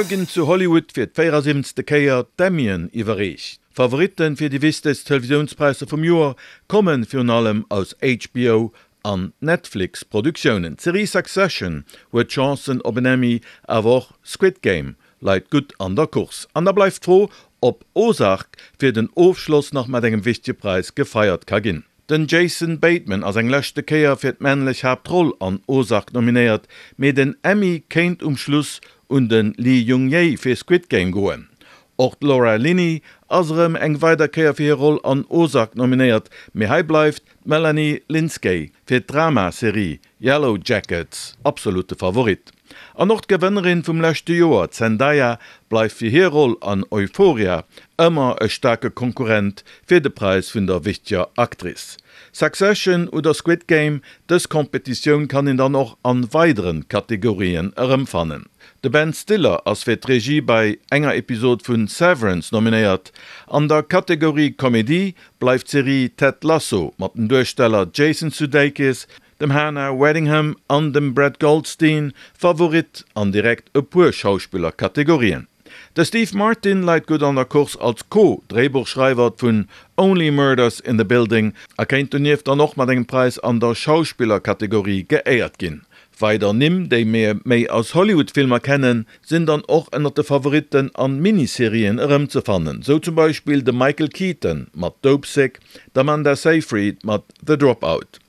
Muer ginn zu Hollywood fir d' 74. Kéier d'Emmyen iwwerreecht. D'Favoritte fir déi wichtegst Televisiounspräisser vum Joer komme virun allem aus HBO an Netflix-Produktiounen. D'Serie Succession huet Chancen op en Emmy, awer och Squid Game leit gutt an der Course. An da bleift d'Fro, ob Ozark fir den Ofschloss nach mat engem wichtege Präis gefeiert ka ginn. Den Jason Bateman ass eng leschte Kéier fir d'männlech Haaptroll an Ozark nominéiert, mee den Emmy kéint um Schluss un de Lee Jung-jae fir Squid Game goen. Och d'Laura Linney ass erëm eng weider Kéier fir hir Roll an Ozark nominéiert, mee hei bleift d'Melanie Lynskey fir d'Drama-Serie Yellowjackets absolutte Favorit. An och d'Gewënnerin vum leschte Joer, d'Zendaya, bleift fir hir Roll an Euphoria ëmmer e staarke Konkurrent fir de Präis vun der wichteger Actrice. Succession oder Squid Game, dës Kompetitioun kann een dann och an weideren Kategorien erëmfannen. De Ben Stiller ass fir d'Regie bei enger Episod vun Severance nominéiert. An der Kategorie Komedie bleift d'Serie Ted Lasso mat den Duersteller Jason Sudeikis, dem Hannah Waddingham an dem Brett Goldstein Favorit an direkt e puer Schauspillerkategorien. De Steve Martin leit gutt an der Course als Co-Dréibuchschreiwer vun Only Murders in the Building a kéint donieft dann och mat engem Präis an der Schauspillerkategorie geéiert ginn. Weider Nimm, déi mir méi aus Hollywood-Filmer kennen, sinn dann och ënnert de Favoritten an Miniserien erëmzefannen, sou zum Beispill de Michael Keaton mat Dopesick, d'Amanda Seyfried mat The Dropout.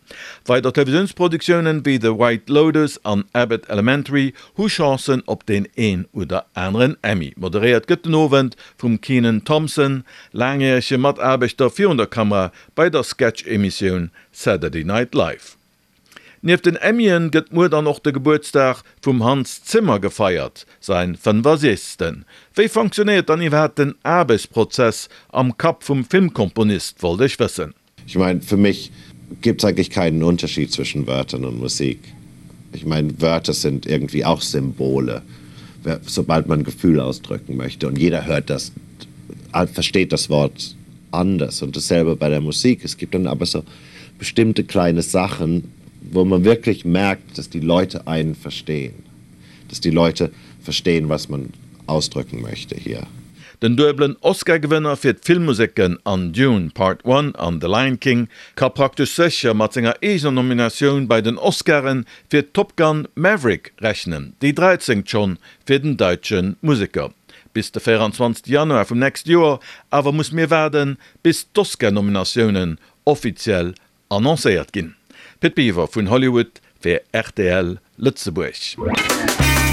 Weider Televisiounsproduktioune wéi The White Lotus an Abbott Elementary hu Chancen op deen een oder aneren Emmy. Moderéiert gëtt den Owend vum Kenan Thompson, laangjärege Mataarbechter virun der Kamera bei der Sketch-Emissioun Saturday Night Live. Nieft den Emmyen gëtt muer dann och de Gebuertsdag vum Hans Zimmer gefeiert, säin 65. Wéi fonctionnéiert dann iwwerhaapt den Aarbechtsprozess am Kapp vum Filmkomponist, wollt ech wëssen. Ich mein, für mich gibt es eigentlich keinen Unterschied zwischen Wörtern und Musik. Ich mein, Wörter sind irgendwie auch Symbole, sobald man Gefühl ausdrücken möchte und jeder hört das, versteht das Wort anders und dasselbe bei der Musik. Es gibt dann aber so bestimmte kleine Sachen, wo man wirklich merkt, dass die Leute einen verstehen, dass die Leute verstehen, was man ausdrücken möchte hier. Den duebelen Oscar-Gewënner fir d'Filmmuseken an Dune Part One an The Lion King ka praktesch sécher mat senger eegener Nominatioun bei den Oscaren fir Top Gun, Maverick rechnen, déi dräizéngt schonn fir den däitsche Museker. Bis de 24 Januar vum nächste Joer awer muss mir waarden, bis d'Oscar-Nominatiounen offiziell Annoncéiert ginn. Pit Biwer vun Hollywood fir rtl Lëtzebuerg.